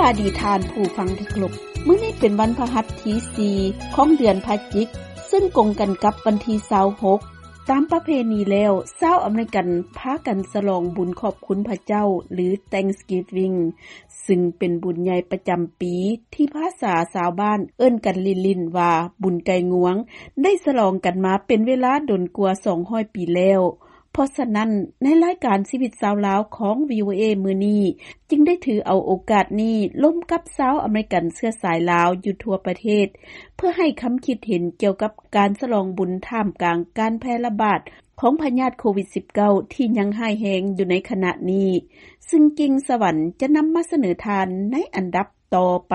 ອະດີຕທ່ານຜູ້ຟັງທີ່ເຄົາລົບ, ມື້ນີ້ເປັນວັນພະຫັດທີສີ່ຂອງເດືອນພະຈິກ, ເຊິ່ງກົງກັນກັບວັນທີຊາວຫົກ. ຕາມປະເພນີແລ້ວ, ຊາວອາເມລິກັນພາກັນສະຫຼອງບຸນຂອບຄຸນພະເຈົ້າ ຫຼື Thanksgiving, ຊຶ່ງເປັນບຸນໃຫຍ່ປະຈຳປີ ທີ່ພາສາຊາວບ້ານເອີ້ນກັນຫຼິ້ນໆວ່າບຸນໄກ່ງວງ, ໄດ້ສະຫຼອງກັນມາເປັນເວລາດົນກວ່າສອງຮ້ອຍປີແລ້ວ. ເພາະສະນັ້ນ, ໃນລາຍການຊີວິດຊາວລາວຂອງ ວີໂອເອ ມື້ນີ້ ຈຶ່ງໄດ້ຖືເອົາໂອກາດນີ້ລົມກັບຊາວອາເມລິກັນເຊື້ອສາຍລາວຢູ່ທົ່ວປະເທດ ເພື່ອໃຫ້ຄຳຄິດເຫັນກ່ຽວກັບການສະຫຼອງບຸນທ່າມກາງການແຜ່ລະບາດຂອງພະຍາດໂຄວິດສິບເກົ້າ ທີ່ຍັງຮ້າຍແຮງຢູ່ໃນຂະນະນີ້, ຊຶ່ງກິ່ງສະຫວັນຈະນຳມາສະເໜີທ່ານໃນອັນດັບຕໍ່ໄປ.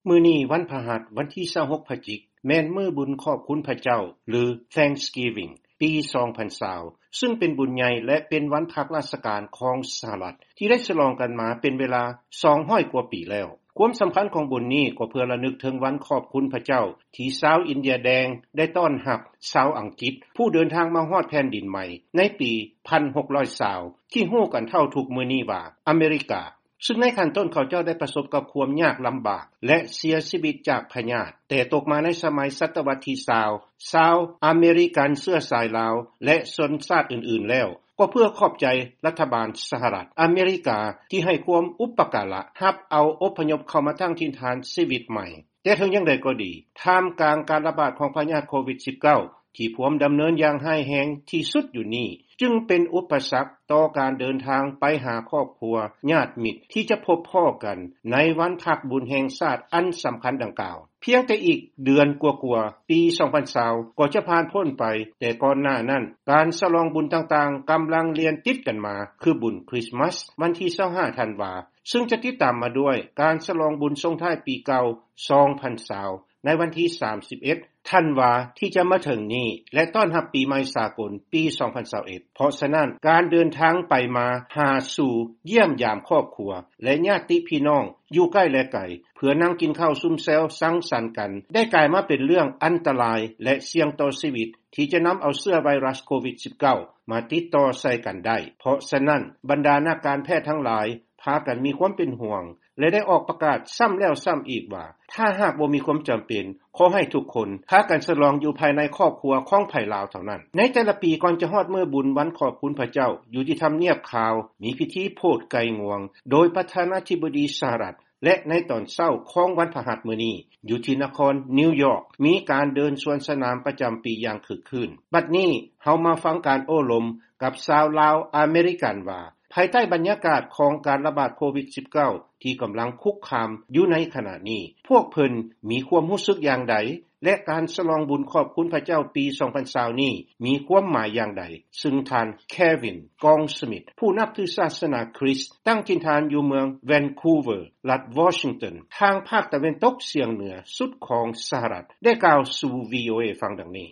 ມື້ນີ້ວັນພະຫັດ ວັນທີຊາວຫົກພະຈິກ ແມ່ນມື້ບຸນຂອບຄຸນພະເຈົ້າ ຫຼື Thanksgiving ປີສອງພັນຊາວ ຊຶ່ງເປັນບຸນໃຫຍ່ ແລະ ເປັນວັນພັກລາຊະການຂອງສະຫະລັດ ທີ່ໄດ້ສະຫຼອງກັນມາເປັນເວລາສອງຮ້ອຍກວ່າປີແລ້ວ. ຄວາມສຳຄັນຂອງບຸນນີ້ກໍເພື່ອລະນຶກເຖິງວັນຂອບຄຸນພະເຈົ້າ ທີ່ຊາວອິນເດຍແດງໄດ້ຕ້ອນຮັບຊາວອັງກິດ ຜູ້ເດີນທາງມາຮອດແຜ່ນດິນໃໝ່ໃນປີພັນຫົກຮ້ອຍຊາວ ທີ່ຮູ້ກັນເທົ່າທຸກມື້ນີ້ວ່າອາເມລິກາ. ຊຶ່ງໃນຂັ້ນຕົ້ນເຂົາເຈົ້າໄດ້ປະສົບກັບຄວາມຍາກລຳບາກ ແລະ ເສຍຊີວິດຈາກພະຍາດ, ແຕ່ຕົກມາໃນສະໄໝສັດຕະວັດທີຊາວ ຊາວອາເມລິກັນເຊື້ອສາຍລາວ ແລະ ຊົນຊາດອື່ນໆແລ້ວ, ກໍເພື່ອຂອບໃຈລັດຖະບານສະຫະລັດອາເມລິກາ ທີ່ໃຫ້ຄວາມອຸປະກາລະຮັບເອົາອົບພະຍົບເຂົ້າມາຕັ້ງຖິ່ນຖານຊີວິດໃໝ່. ແຕ່ເຖິງຢ່າງໃດກໍດີ, ທ່າມກາງການລະບາດຂອງພະຍາດໂຄວິດສິບເກົ້າ ທີ່ພວມດຳເນີນຢ່າງຮ້າຍແຮງທີ່ສຸດຢູ່ນີ້, ຈຶ່ງເປັນອຸປະສັກຕໍ່ການເດີນທາງໄປຫາຄອບຄົວ, ຍາດມິດ ທີ່ຈະພົບພໍ້ກັນໃນວັນພັກບຸນແຫ່ງຊາດອັນສຳຄັນດັ່ງກ່າວ. ພຽງແຕ່ອີກເດືອນກວ່າໆ ປີສອງພັນຊາວ ກໍຈະຜ່ານພົ້ນໄປ, ແຕ່ກ່ອນໜ້ານັ້ນ ການສະຫຼອງບຸນຕ່າງໆກຳລັງລຽນຕິດກັນມາ, ຄືບຸນຄຣິສມາສ ວັນທີຊາວຫ້າທັນວາ, ຊຶ່ງຈະຕິດຕາມມາດ້ວຍການສະຫຼອງບຸນສົ່ງທ້າຍປີເກົ່າສອງພັນຊາວ ໃນວັນທີສາມສິບເອັດທັນວາທີ່ຈະມາເຖິງນີ້ ແລະ ຕ້ອນຮັບປີໃໝ່ສາກົນປີສອງພັນຊາວເອັດ. ເພາະສະນັ້ນ, ການເດີນທາງໄປມາຫາສູ່ຢ້ຽມຢາມຄອບຄົວ ແລະ ຍາດຕິພີ່ນ້ອງຢູ່ໃກ້ ແລະ ໄກ ເພື່ອນັ່ງກິນເຂົ້າຊຸມແຊວສັງສັນກັນ ໄດ້ກາຍມາເປັນເລື່ອງອັນຕະລາຍ ແລະ ສ່ຽງຕໍ່ຊີວິດ ທີ່ຈະນຳເອົາເຊື້ອໄວຣັສໂຄວິດສິບເກົ້າ ມາຕິດຕໍ່ໃສ່ກັນໄດ້. ເພາະສະນັ້ນ, ບັນດານັກການແພດທັງຫຼາຍ ພາກັນມີຄວາມເປັນຫ່ວງ ແລະ ໄດ້ອອກປະກາດຊ້ຳແລ້ວຊ້ຳອີກວ່າ ຖ້າຫາກບໍ່ມີຄວາມຈຳເປັນ, ຂໍໃຫ້ທຸກຄົນພາກັນສະຫຼອງຢູ່ພາຍໃນຄອບຄົວຂອງໃຜລາວເທົ່ານັ້ນ. ໃນແຕ່ລະປີ ກ່ອນຈະຮອດມື້ບຸນວັນຂອບຄຸນພະເຈົ້າ, ຢູ່ທີ່ທຳນຽບຂາວ ມີພິທີໂຜດໄກ່ງວງ ໂດຍປະທານາທິບໍດີສະຫະລັດ ແລະ ໃນຕອນເຊົ້າຂອງວັນພະຫັດມື້ນີ້, ຢູ່ທີ່ນະຄອນນິວຢອກ ມີການເດີນສວນສະໜາມປະຈຳປີຢ່າງຄຶກຄື້ນ. ບັດນີ້ເຮົາມາຟັງການໂອ້ລົມກັບຊາວລາວອາເມລິກັນວ່າ ພາຍໃຕ້ບັນຍາກາດຂອງການລະບາດໂຄວິດສິບເກົ້າ ທີ່ກຳລັງຄຸກຄາມຢູ່ໃນຂະນະນີ້, ພວກເພິ່ນມີຄວາມຮູ້ສຶກຢ່າງໃດ ແລະ ການສະຫຼອງບຸນຂອບຄຸນພະເຈົ້າປີສອງພັນຊາວນີ້ມີຄວາມໝາຍຢ່າງໃດ, ຊຶ່ງທ່ານ Kevin Goldsmith ຜູ້ນັບຖືສາສະໜາຄຣິສ ຕັ້ງຖິ່ນຖານຢູ່ເມືອງ Vancouver ລັດ Washington ທາງພາກຕາເວັນຕົກສຽງເໜືອສຸດຂອງສະຫະລັດ ໄດ້ກ່າວສູ່ ວີໂອເອ ຟັງດັ່ງນີ້.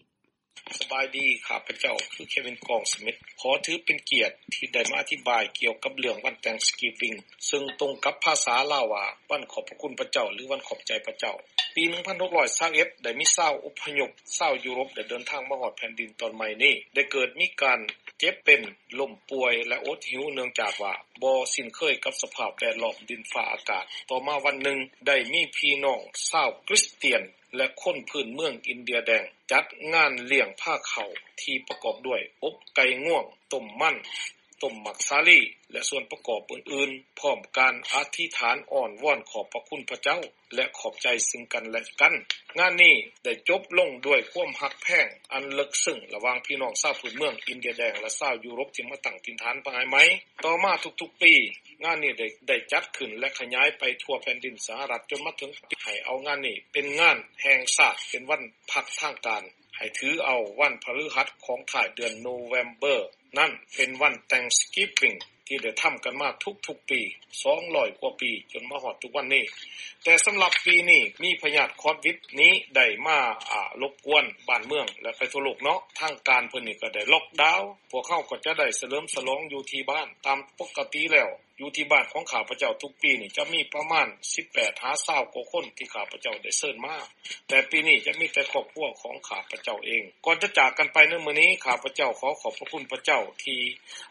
ສະບາຍດີ, ຂ້າພະເຈົ້າຄື Kevin Goldsmith ຂໍຖືເປັນກຽດທີ່ໄດ້ມາອະທິບາຍກ່ຽວກັບເລື່ອງວັນ Thanksgiving ເຊິ່ງຕົງກັບພາສາລາວວ່າ ວັນຂອບພະຄຸນພະເຈົ້າ ຫຼື ວັນຂອບໃຈພະເຈົ້າ. ປີໜຶ່ງພັນຫົກຮ້ອຍຊາວເອັດ ໄດ້ມີຊາວອົບພະຍົບຊາວຢູໂຣບໄດ້ເດີນທາງມາຮອດແຜ່ນດິນຕອນໃໝ່ນີ້, ໄດ້ເກີດມີການເຈັບເປັນ, ລົ້ມປ່ວຍ ແລະ ອົດຫິວ ເນື່ອງຈາກວ່າບໍ່ຊິນເຄີຍກັບສະພາບແວດລ້ອມດິນຟ້າອາກາດ. ຕໍ່ມາວັນໜຶ່ງ ໄດ້ມີພີ່ນ້ອງຊາວຄຣິສຕຽນ ແລະ ຄົນພື້ນເມືອງອິນເດຍແດງ ຈັດງານລ້ຽງພາເຂົ້າທີ່ປະກອບດ້ວຍອົບໄກ່ງວງ, ຕົ້ມມັນ, ຕົ້ມໝາກສາລີ ແລະ ສ່ວນປະກອບອື່ນໆ, ພ້ອມການອະທິຖານອ້ອນວອນຂອບພະຄຸນພະເຈົ້າ ແລະ ຂອບໃຈຊຶ່ງກັນແລະກັນ. ງານນີ້ໄດ້ຈົບລົງດ້ວຍຄວາມຮັກແພງອັນເລິກເຊິ່ງລະຫວ່າງພີ່ນ້ອງຊາວພື້ນເມືອງອິນເດຍແດງ ແລະ ຊາວຢູໂຣບທີ່ມາຕັ້ງຖິ່ນຖານພາຍໃໝ່. ຕໍ່ມາທຸກໆປີ, ງານນີ້ໄດ້, ໄດ້ຈັດຂຶ້ນ ແລະ ຂະຫຍາຍໄປທົ່ວແຜ່ນດິນສະຫະລັດ ຈົນມາເຖິງໃຫ້ເອົາງານນີ້ເປັນງານແຫ່ງຊາດ, ເປັນວັນພັກທາງການ, ໃຫ້ຖືເອົາວັນພະฤຫັດຂອງທ້າຍເດືອນໂນເວມເບີນັ້ນເປັນວັນ Thanksgiving ທີ່ໄດ້ທຳກັນມາທຸກໆປີ ສອງຮ້ອຍກວ່າປີ ຈົນມາຮອດທຸກວັນນີ້. ແຕ່ສຳລັບປີນີ້ ມີພະຍາດຄອດວິດນີ້ໄດ້ມາ, ອາ, ລົບກວນບ້ານເມືອງ ແລະ ໄປທົ່ວໂລກເນາະ, ທາງການເພິ່ນນີ້ກໍໄດ້ລັອກດາວ, ພວກເຮົາກໍຈະໄດ້ສະເຫຼີມສະຫຼອງຢູ່ທີ່ບ້ານຕາມປົກກະຕິແລ້ວ. ຢູ່ທີ່ບ້ານຂອງຂ້າພະເຈົ້າທຸກປີນີ້ຈະມີປະມານສິບແປດຫາຊາວກວ່າຄົນທີ່ຂ້າພະເຈົ້າໄດ້ເຊີນມາ, ແຕ່ປີນີ້ຈະມີແຕ່ຄອບຄົວຂອງຂ້າພະເຈົ້າເອງ. ກ່ອນຈະຈາກກັນໄປໃນມື້ນີ້, ຂ້າພະເຈົ້າຂໍຂອບພະຄຸນພະເຈົ້າທີ່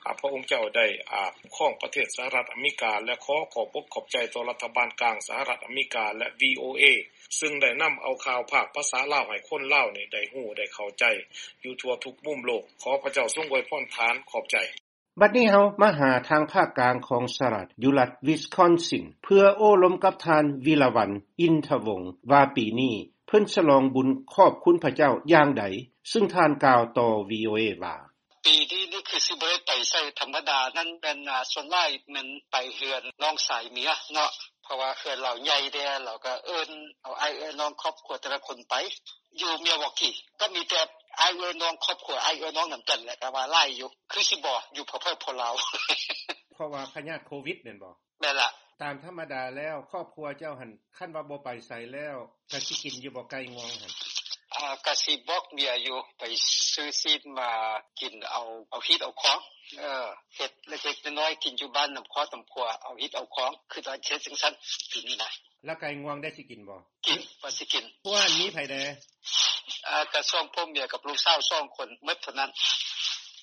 ອາ ພະອົງເຈົ້າໄດ້ ອາ ຄຸ້ມຄອງປະເທດສະຫະລັດອາເມລິກາ ແລະ ຂໍຂອບອົກຂອບໃຈຕໍ່ລັດຖະບານກາງສະຫະລັດອາເມລິກາ ແລະ ວີໂອເອ ຊຶ່ງໄດ້ນຳເອົາຂ່າວພາກພາສາລາວໃຫ້ຄົນລາວນີ້ໄດ້ຮູ້ໄດ້ເຂົ້າໃຈຢູ່ທົ່ວທຸກມຸມໂລກ. ຂໍພະເຈົ້າຊົງອວຍພອນທ່ານ. ຂອບໃຈ. ບັດນີ້ເຮົາມາຫາທາງພາກກາງຂອງສະຫະລັດ ຢູ່ລັດວິສຄອນຊິນ ເພື່ອໂອ້ລົມກັບທ່ານ ວິລະວັນ ອິນທະວົງ ວ່າປີນີ້ເພິ່ນສະຫຼອງບຸນຂອບຄຸນພະເຈົ້າຢ່າງໃດ, ຊຶ່ງທ່ານກ່າວຕໍ່ ວີໂອເອ ວ່າ ປີນີ້ນີ້ຄືຊິບໍ່ໄດ້ໄປໃສ, ທຳມະດານັ້ນແມ່ນ ອາ ສ່ວນຫຼາຍແມ່ນໄປເຮືອນນ້ອງຊາຍເມຍເນາະ, ເພາະວ່າເຮືອນລາວໃຫຍ່ແດ່, ລາວກໍເອີ້ນເອົາອ້າຍເອື້ອຍນ້ອງຄອບຄົວແຕ່ລະຄົນໄປ. ຢູ່ມິວວອກກີກໍມີແຕ່ອ້າຍເອື້ອຍນ້ອງຄອບຄົວ, ອ້າຍເອື້ອຍນ້ອງນຳກັນແຫຼະ, ກໍວ່າຫຼາຍຢູ່, ຄືຊິບໍ່ຢູ່ເພີ້ໆ ພໍລາວ. ເພາະວ່າພະຍາດໂຄວິດແມ່ນບໍ່? ແມ່ນລະ. ຕາມທຳມະດາແລ້ວ ຄອບຄົວເຈົ້າຫັ້ນ ຄັນວ່າບໍ່ໄປໃສແລ້ວ ກະຊິກິນຢູ່ບໍ່ໄກ່ງວງຫັ້ນ? ອາ ກະຊິບອກເມຍຢູ່ ໄປຊື້ຊີ້ນມາກິນເອົາ ເອົາຮີດເອົາຄອງ. ເອີ ເຮັດເລັກໆນ້ອຍໆ ກິນຢູ່ບ້ານນຳຄອບນຳຄົວ ເອົາຮີດເອົາຄອງ. ຄືວ່າເຮັດຈັ່ງຊັ້ນປີນີ້ນະ. ແລ້ວໄກ່ງວງໄດ້ຊິກິນບໍ່? ກິນ ວ່າຊິກິນ. ຜູ້ຫັ້ນມີໃຜແດ່? ອາ ກະສອງຜົວເມຍກັບລູກສາວສອງຄົນໝົດເທົ່ານັ້ນ.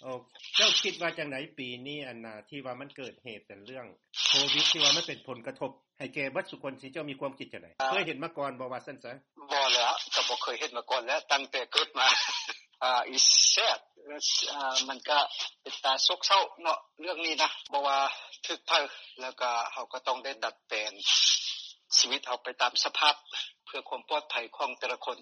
ໂອ ເຈົ້າຄິດວ່າຈັ່ງໃດປີນີ້ ອັນນາ ທີ່ວ່າມັນເກີດເຫດເປັນເລື່ອງໂຄວິດ ທີ່ວ່າມັນເປັນຜົນກະທົບໃຫ້ແກ່ເບິດສູ່ຄົນ, ທີ່ເຈົ້າມີຄວາມຄິດຈັ່ງໃດ? ເຄີຍເຫັນມາກ່ອນບໍ່ ວ່າຊັ້ນຊະ? ບໍ່ແລ້ວ, ກໍບໍ່ເຄີຍເຫັນມາກ່ອນແລ້ວ ຕັ້ງແຕ່ເກີດມາ. ອາ it's sad. ອາ ມັນກະເປັນຕາໂສກເສົ້າເນາະ ເລື່ອງນີ້ນະ. ບໍ່ວ່າຖືກໃຜ ແລ້ວກະເຮົາກໍຕ້ອງໄດ້ດັດແປງຊີວິດເຮົາໄປຕາມສະພາບ ເພື່ອຄວາມປອດໄພຂອງແຕ່ລະຄົນ.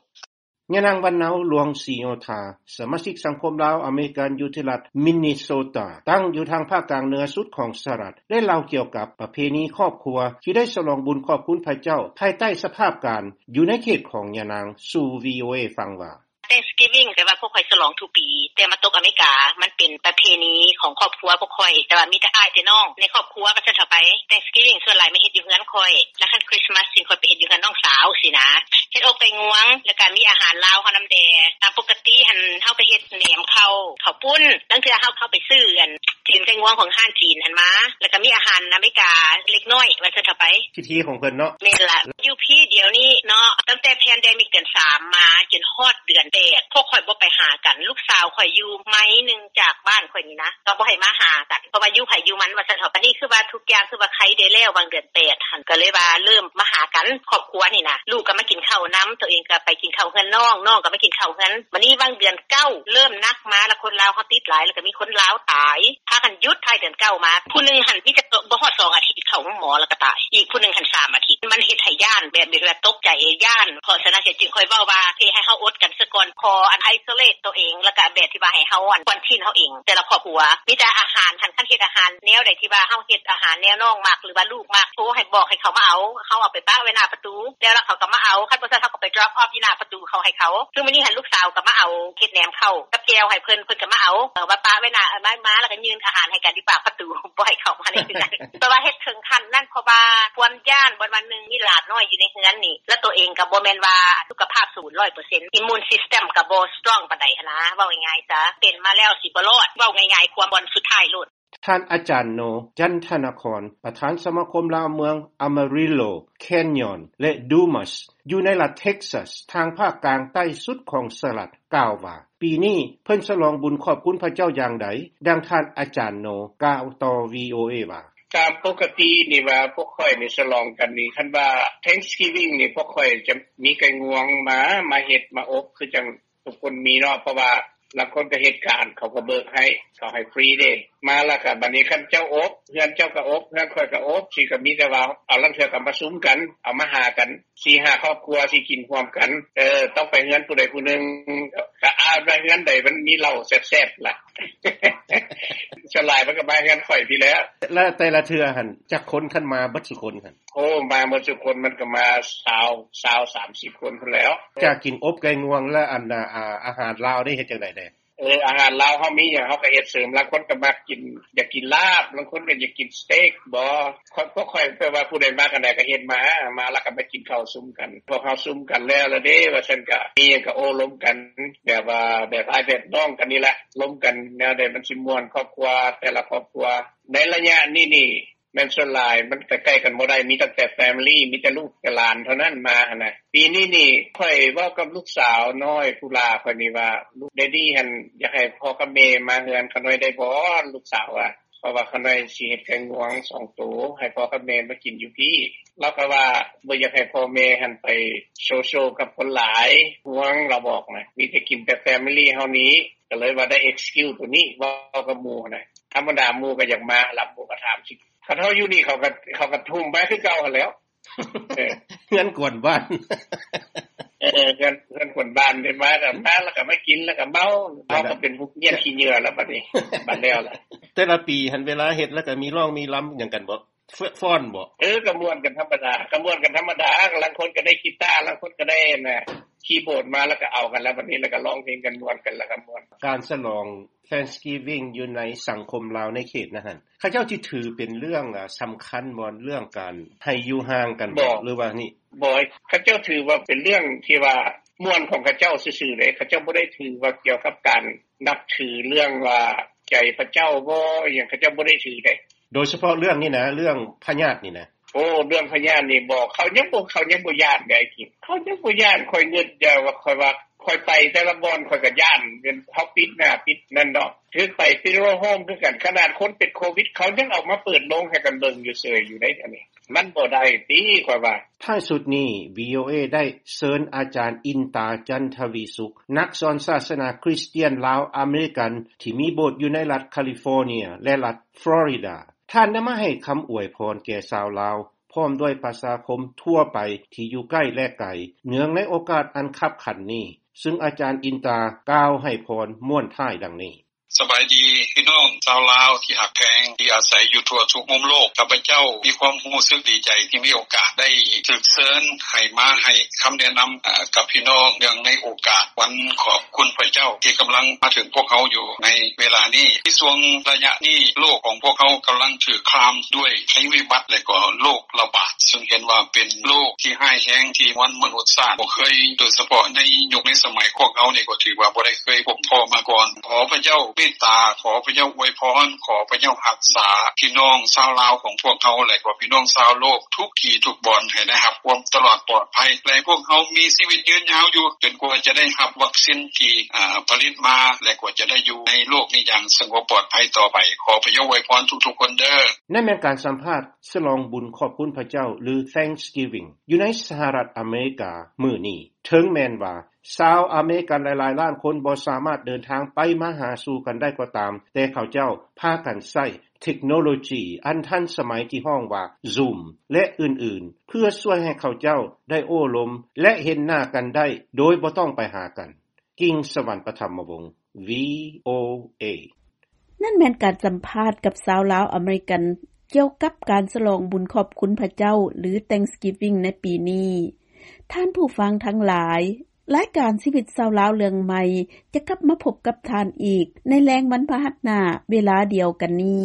ຍານາງ ວັນເນົາ ຫຼວງສີໂຍທາ ສະມາຊິກສັງຄົມລາວອາເມລິກັນ ຢູ່ທີ່ລັດມິນນີໂຊຕາ ຕັ້ງຢູ່ທາງພາກກາງເໜືອສຸດຂອງສະຫະລັດ ໄດ້ເລົ່າກ່ຽວກັບປະເພນີຄອບຄົວທີ່ໄດ້ສະຫຼອງບຸນຂອບຄຸນພະເຈົ້າ ພາຍໃຕ້ສະພາບການຢູ່ໃນເຂດຂອງຍານາງ ສູ່ ວີໂອເອ ຟັງວ່າ Thanksgiving ແຕ່ວ່າພວກຂ້ອຍສະຫຼອງທຸກປີ ແຕ່ມາຕົກອາເມລິກາ ມັນເປັນປະເພນີຂອງຄອບຄົວພວກຂ້ອຍ ແຕ່ວ່າມີແຕ່ອ້າຍແຕ່ນ້ອງໃນຄອບຄົວວ່າຊັ້ນເຖາະໄປ. Thanksgiving ສ່ວນຫຼາຍມາເຮັດຢູ່ເຮືອນຂ້ອຍ ແລ້ວຄັນ Christmas ຊິຂ້ອຍໄປເຮັດຢູ່ເຮືອນນ້ອງສາວຊີ້ນະ. ເຮັດອົບໄກ່ງວງ ແລ້ວກະມີອາຫານລາວເຮົານຳແດ່. ຕາມປົກກະຕິຫັ້ນ ເຮົາກະເຮັດແໜມເຂົ້າ ເຂົ້າປຸ້ນ. ລາງເທື່ອເຮົາເຂົ້າໄປຊື້ອັນຕີນໄກ່ງວງຂອງຮ້ານຈີນຫັ້ນມາ ແລ້ວກະມີອາຫານອາເມລິກາເລັກນ້ອຍວ່າຊັ້ນເຖາະໄປ. ພິທີຂອງເພິ່ນເນາະ. ແມ່ນລະ. ຢູ່ພີ້ດຽວນີ້ເນາະ ຕັ້ງແຕ່ແພນເດມິກເດືອນສາມມາຈົນຮອດເດືອນແປດ ພວກຂ້ອຍບໍ່ໄປຫາກັນ. ລູກສາວຂ້ອຍຢູ່ໄມໜຶ່ງຈາກບ້ານຂ້ອຍນີ້ນະ ກໍບໍ່ໃຫ້ມາຫາກັນ ເພາະວ່າຢູ່ໃຜຢູ່ມັນວ່າຊັ້ນເຖາະ. ບາດນີ້ຄືວ່າທຸກຢ່າງຄືວ່າໄຄແດ່ແລ້ວ ຫວ່າງເດືອນ ແປດຫັ້ນ ກໍເລີຍວ່າເລີ່ມມາຫາກັນຄອບຄົວນີ້ນະ. ລູກກໍມາກິນເຂົ້ານຳ, ໂຕເອງກໍໄປກິນເຂົ້າເຮືອນນ້ອງ, ນ້ອງກໍມາກິນເຂົ້າເຮືອນ. ບາດນີ້ຫວ່າງເດືອນເກົ້າເລີ່ມໜັກມາລະ, ຄົນລາວເຮົາຕິດຫຼາຍ ແລ້ວກໍມີຄົນລາວຕາຍ ພາກັນຢຸດທ້າຍເດືອນເກົ້າມາ. ຜູ້ໜຶ່ງຫັ້ນມີແຕ່ບໍ່ຮອດສອງອາທິດເຂົ້າໂຮງໝໍແລ້ວກໍຕາຍ, ອີກຜູ້ໜຶ່ງຫັ້ນສາມອາທິດ. ມັນເຮັດໃຫ້ຢ້ານ ແບບວ່າຕົກໃຈ ຢ້ານ. ເພາະສະນັ້ນເສຍຈຶ່ງຂ້ອຍເວົ້າວ່າ ເພໃຫ້ເຮົາອົດກັນສາກ່ອນ, ຂໍອັນ isolate ໂຕເອງ ແລ້ວກໍແບບທີ່ວ່າໃຫ້ເຮົາອັນ quarantine ເຮົາເອງ ແຕ່ລະຄອບຄົວ. ມີແຕ່ອາຫານຫັ້ນ ຄັນເຮັດອາຫານແນວໃດທີ່ວ່າເຮົາເຮັດອາຫານແນວນ້ອງມັກ ຫຼືວ່າລູກມັກ ໂທໃຫ້ບອກໃຫ້ເຂົາມາເອົາ, ເຮົາເອົາໄປປະໄວ້ໜ້າປະຕູ ແລ້ວລະເຂົາກໍມາເອົາ. ຄັນບໍ່ຊັ້ນເຮົາກໍໄປ drop off ຢູ່ໜ້າປະຕູເຂົາໃຫ້ເຂົາ. ຄືມື້ນີ້ຫັ້ນລູກສາວກໍມາເອົາເຮັດແໜມເຂົ້າກັບແຈ່ວໃຫ້ເພິ່ນ, ເພິ່ນກໍມາເອົາ, ເອີ ມາປະໄວ້ໜ້າ, ມາ ມາແລ້ວກໍຍື່ນອາຫານໃຫ້ກັນຢູ່ປາກປະຕູ, ບໍ່ໃຫ້ເຂົ້າມາໃນເຮືອນ. ແຕ່ວ່າເຮັດເຖິງຂັ້ນນັ້ນ ເພາະວ່າຄວາມຢ້ານ ບ່ອນວ່າໜຶ່ງມີຫຼານນ້ອຍຢູ່ໃນເຮືອນນີ້ ແລ້ວໂຕເອງກໍບໍ່ແມ່ນວ່າສຸຂະພາບສູນຮ້ອຍເປີເຊັນ, immune system ກໍບໍ່ strong ປານໃດຫັ້ນນາ, ເວົ້າງ່າຍໆຊະ ເປັນມາແລ້ວຊິບໍ່ລອດ, ເວົ້າງ່າຍໆ ຄວາມບ່ອນສຸດທ້າຍໂລດ. ທ່ານອາຈານໂນ ຈັນທະນະຄອນ ປະທານສະມາຄົມລາວເມືອງ Amarillo, Canyon ແລະ Dumas ຢູ່ໃນລັດ Texas ທາງພາກກາງໃຕ້ສຸດຂອງສະຫະລັດ ກ່າວວ່າ ປີນີ້ເພິ່ນສະຫຼອງບຸນຂອບຄຸນພະເຈົ້າຢ່າງໃດ, ດັ່ງທ່ານອາຈານໂນ ກ່າວຕໍ່ ວີໂອເອ ວ່າ ຕາມປົກກະຕິນີ້ວ່າພວກຂ້ອຍນີ້ສະຫຼອງກັນນີ້ ຄັນວ່າ Thanksgiving ນີ້ພວກຂ້ອຍຈະມີໄກ່ງວງມາ ມາເຮັດມາອົບ ຄືຈັ່ງ ທຸກຄົນມີເນາະ, ເພາະວ່າລາງຄົນກໍເຮັດການ ເຂົາກໍເບີກໃຫ້ ເຂົາໃຫ້ຟຣີເດ້. ມາແລ້ວກໍບາດນີ້ຄັນເຈົ້າອົບ ເຮືອນເຈົ້າກໍອົບ ເຮືອນຂ້ອຍກໍອົບ ຊິກໍມີແຕ່ວ່າເອົາ ລາງເທື່ອກໍມາຊຸມກັນ ເອົາມາຫາກັນ ສີ່ຫ້າຄອບຄົວຊິກິນຮ່ວມກັນ. ເອີ ຕ້ອງໄປເຮືອນຜູ້ໃດຜູ້ໜຶ່ງ ກໍອາດວ່າເຮືອນໃດມັນມີເຫຼົ້າແຊບໆລະ. ສ່ວນຫຼາຍມັນກໍມາເຮືອນຂ້ອຍພີ້ແຫຼະ. ແລະແຕ່ລະເທື່ອຫັ້ນຈັກຄົນ ຄັນມາເບິດສູ່ຄົນຫັ້ນ? ໂອ້ ມາໝົດທຸກຄົນ ມັນກໍມາຊາວ ຊາວ ສາມສິບຄົນພຸ້ນແຫຼ້ວ. ຈາກກິນອົບໄກ່ງວງແລ້ວ ອັນ ອາ ອາຫານລາວນີ້ເຮັດຈັ່ງໃດແດ່? ເອີ ອາຫານລາວເຮົາມີຫຍັງເຮົາກໍເຮັດເສີມ, ລາງຄົນກໍມັກກິນ ຢາກກິນລາບ, ລາງຄົນກໍຢາກກິນສະເຕັກບໍ. ພວກຂ້ອຍແບບວ່າຜູ້ໃດມັກອັນໃດກໍເຮັດມາ, ມາແລ້ວກໍມາກິນເຂົ້າຊຸມກັນ. ພວກເຮົາຊຸມກັນແລ້ວລະເດ້ ວ່າຊັ້ນ, ກໍມີຫຍັງກໍໂອ້ລົມກັນ ແບບວ່າແບບອ້າຍແບບນ້ອງກັນນີ້ແຫຼະ, ລົມກັນແນວໃດມັນຊິມ່ວນ ຄອບຄົວແຕ່ລະຄອບຄົວ. ໃນໄລຍະນີ້ນີ້ ແມ່ນສ່ວນຫຼາຍມັນໃກ້ໆກັນບໍ່ໄດ້ ມີຕັ້ງແຕ່ family ມີແຕ່ລູກແຕ່ຫຼານເທົ່ານັ້ນມາຫັ້ນນະ. ປີນີ້ນີ້ຂ້ອຍເວົ້າກັບລູກສາວນ້ອຍຜູ້ຫຼ້າຂ້ອຍນີ້ວ່າ ລູກ Daddy ຫັ້ນຢາກໃຫ້ພໍ່ກັບແມ່ມາເຮືອນຂ້ານ້ອຍໄດ້ບໍ່ ລູກສາວວ່າ ເພາະວ່າຂ້ານ້ອຍຊິເຮັດໄກ່ງວງສອງໂຕ ໃຫ້ພໍ່ກັບແມ່ມາກິນຢູ່ພີ້. ລາວກໍວ່າບໍ່ຢາກໃຫ້ພໍ່ແມ່ຫັ້ນໄປໂຊໂຊກັບຄົນຫຼາຍ ຫ່ວງ ລາວບອກນະ ມີແຕ່ກິນແຕ່ family ເຮົານີ້. ກໍເລີຍວ່າໄດ້ excuse ໂຕນີ້ເວົ້າກັບໝູ່ນະ. ທຳມະດາໝູ່ກໍຢາກມາລະ ໝູ່ກໍຖາມຊິ ຄັນເຮົາຢູ່ນີ້ເຂົາກໍ ເຂົາກໍທຸ່ມມາຄືເກົ່າຫັ້ນແຫຼ້ວ. ເອີ ເຮືອນກວນບ້ານ ເອີ ເຮືອນ ເຮືອນກວນບ້ານ ເພິ່ນມາກໍມາ ແລ້ວກໍມາກິນ ແລ້ວກໍເມົາ. ແລ້ວກໍເປັນພວກເຫຍື້ອນຂີ້ເຫຍື້ອແລ້ວບັດນີ້ ບັດແລ້ວລະ. ແຕ່ລະປີຫັ້ນເວລາເຮັດແລ້ວກໍມີຮ້ອງມີລຳຫຍັງກັນບໍ່? ຟ້ອນບໍ່? ເອີ ກໍມ່ວນກັນທຳມະດາ ກໍມ່ວນກັນທຳມະດາ. ລາງຄົນກໍໄດ້ກີຕາ ລາງຄົນກໍໄດ້ອັນນ່າ ຄີບອດມາ ແລ້ວກໍເອົາກັນ ແລ້ວບັດນີ້ ແລ້ວກໍຮ້ອງເພງກັນ ມ່ວນກັນ ແລ້ວກໍມ່ວນ. ການສະຫຼອງ Thanksgiving ຢູ່ໃນສັງຄົມລາວໃນເຂດນັ້ນຫັ້ນ ເຂົາເຈົ້າຊິຖືເປັນເລື່ອງ ອາ ສຳຄັນບໍ່ ເລື່ອງການໃຫ້ຢູ່ຫ່າງກັນບໍ່ ຫຼືວ່ານີ້? ບໍ່ ເຂົາເຈົ້າຖືວ່າເປັນເລື່ອງທີ່ວ່າມ່ວນຂອງເຂົາເຈົ້າຊື່ໆເດ້. ເຂົາເຈົ້າບໍ່ໄດ້ຖືວ່າກ່ຽວກັບການນັບຖືເລື່ອງວ່າໃຈພະເຈົ້າບໍ່ ອີ່ຫຍັງ ເຂົາເຈົ້າບໍ່ໄດ້ຖືເດ້. ໂດຍສະເພາະເລື່ອງນີ້ນະ ເລື່ອງພະຍາດນີ້ນະ? ໂອ້ ເລື່ອງພະຍາດນີ້ບໍ່ ເຂົາຍັງບໍ່ ເຂົາຍັງບໍ່ຢ້ານເດ້ ໄອ້ຄິງ ເຂົາຍັງບໍ່ຢ້ານ. ຂ້ອຍນຶກຢູ່ວ່າ ຂ້ອຍວ່າ ຂ້ອຍໄປແຕ່ລະບ່ອນ ຂ້ອຍກໍຢ້ານ ເປັນເຮົາປິດໜ້າປິດນັ້ນເນາະ. ຖືກໄປ funeral home ຄືກັນ ຂະໜາດຄົນເປັນໂຄວິດ ເຂົາຍັງເອົາມາເປີດໂລງໃຫ້ກັນເບິ່ງຢູ່ເຊີຍຢູ່ໃດ໋ ອັນນີ້ມັນບໍ່ໄດ້ຕິ ຂ້ອຍວ່າ. ທ້າຍສຸດນີ້ VOA ໄດ້ເຊີນອາຈານ ອິນຕາ ຈັນທະວີສຸກ ນັກສອນສາສະໜາຄຣິສຕຽນລາວອາເມລິກັນ ທີ່ມີໂບດຢູ່ໃນລັດຄາລິຟໍເນຍ ແລະ ລັດຟລໍຣິດາ. ທ່ານໄດ້ມາໃຫ້ຄຳອວຍພອນແກ່ຊາວລາວ ພ້ອມດ້ວຍປະຊາຄົມທົ່ວໄປທີ່ຢູ່ໃກ້ ແລະ ໄກ ເນື່ອງໃນໂອກາດອັນຄັບຂັນນີ້, ຊຶ່ງອາຈານ ອິນຕາ ກ່າວໃຫ້ພອນມ້ວນທ້າຍດັ່ງນີ້. ສະບາຍດີພີ່ນ້ອງຊາວລາວທີ່ຮັກແພງ ທີ່ອາໄສຢູ່ທົ່ວທຸກມຸມໂລກ. ຂ້າພະເຈົ້າມີຄວາມຮູ້ສຶກດີໃຈທີ່ມີໂອກາດໄດ້ຖືກເຊີນໃຫ້ມາໃຫ້ຄຳແນະນຳ ອາ ກັບພີ່ນ້ອງ ເນື່ອງໃນໂອກາດວັນຂອບຄຸນພະເຈົ້າ ທີ່ກຳລັງມາເຖິງພວກເຮົາຢູ່ໃນເວລານີ້. ໃນຊ່ວງໄລຍະນີ້ ໂລກຂອງພວກເຮົາກຳລັງຖືກຄາມດ້ວຍໄພວິບັດ ແລະ ກໍໂລກລະບາດ ຊຶ່ງເຫັນວ່າເປັນໂລກທີ່ຮ້າຍແຮງທີ່ມວນມະນຸດຊາດບໍ່ເຄີຍ, ໂດຍສະເພາະໃນຍຸກໃນສະໄໝພວກເຮົານີ້ກໍຖືວ່າບໍ່ໄດ້ເຄີຍພົບພໍ້ມາກ່ອນ. ຂໍພະເຈົ້າເມດຕາ, ຂໍພະເຈົ້າອວຍພອນ, ຂໍພະເຈົ້າຮັກສາພີ່ນ້ອງຊາວລາວຂອງພວກເຮົາ ແລະ ກໍພີ່ນ້ອງຊາວໂລກທຸກທີ່ທຸກບ່ອນ ໃຫ້ໄດ້ຮັບຄວາມຕະຫຼອດປອດໄພ ແລະ ໃຫ້ພວກເຮົາມີຊີວິດຍືນຍາວຢູ່ ຈົນກວ່າຈະໄດ້ຮັບວັກຊິນທີ່ ອາ ຜະລິດມາ ແລະ ກວ່າຈະໄດ້ຢູ່ໃນໂລກນີ້ຢ່າງສະຫງົບປອດໄພຕໍ່ໄປ. ຂໍພະເຈົ້າອວຍພອນທຸກໆຄົນເດີ. ນັ້ນແມ່ນການສຳພາດສະຫຼອງບຸນຂອບຄຸນພະເຈົ້າ ຫຼື Thanksgiving ຢູ່ໃນສະຫະລັດອາເມລິກາມື້ນີ້. ເຖິງແມ່ນວ່າຊາວອາເມລິກັນຫຼາຍໆລ້ານຄົນບໍ່ສາມາດເດີນທາງໄປມາຫາສູ່ກັນໄດ້ກໍຕາມ, ແຕ່ເຂົາເຈົ້າພາກັນໃຊ້ເທັກໂນໂລຈີອັນທັນສະໄໝທີ່ຮ້ອງວ່າ Zoom ແລະ ອື່ນໆ ເພື່ອຊ່ວຍໃຫ້ເຂົາເຈົ້າໄດ້ໂອ້ລົມ ແລະ ເຫັນໜ້າກັນໄດ້ໂດຍບໍ່ຕ້ອງໄປຫາກັນ. ກິ່ງສະຫວັນ ປະຖຳມະວົງ VOA. ນັ້ນແມ່ນການສຳພາດກັບຊາວລາວອາເມລິກັນ ກ່ຽວກັບການສະຫຼອງບຸນຂອບຄຸນພະເຈົ້າ ຫຼື Thanksgiving ໃນປີນີ້. ທ່ານຜູ້ຟັງທັງຫຼາຍ, ລາຍການຊີວິດຊາວລາວເລື່ອງໃໝ່ ຈະກັບມາພົບກັບທ່ານອີກໃນແລງວັນພະຫັດໜ້າເວລາດຽວກັນນີ້.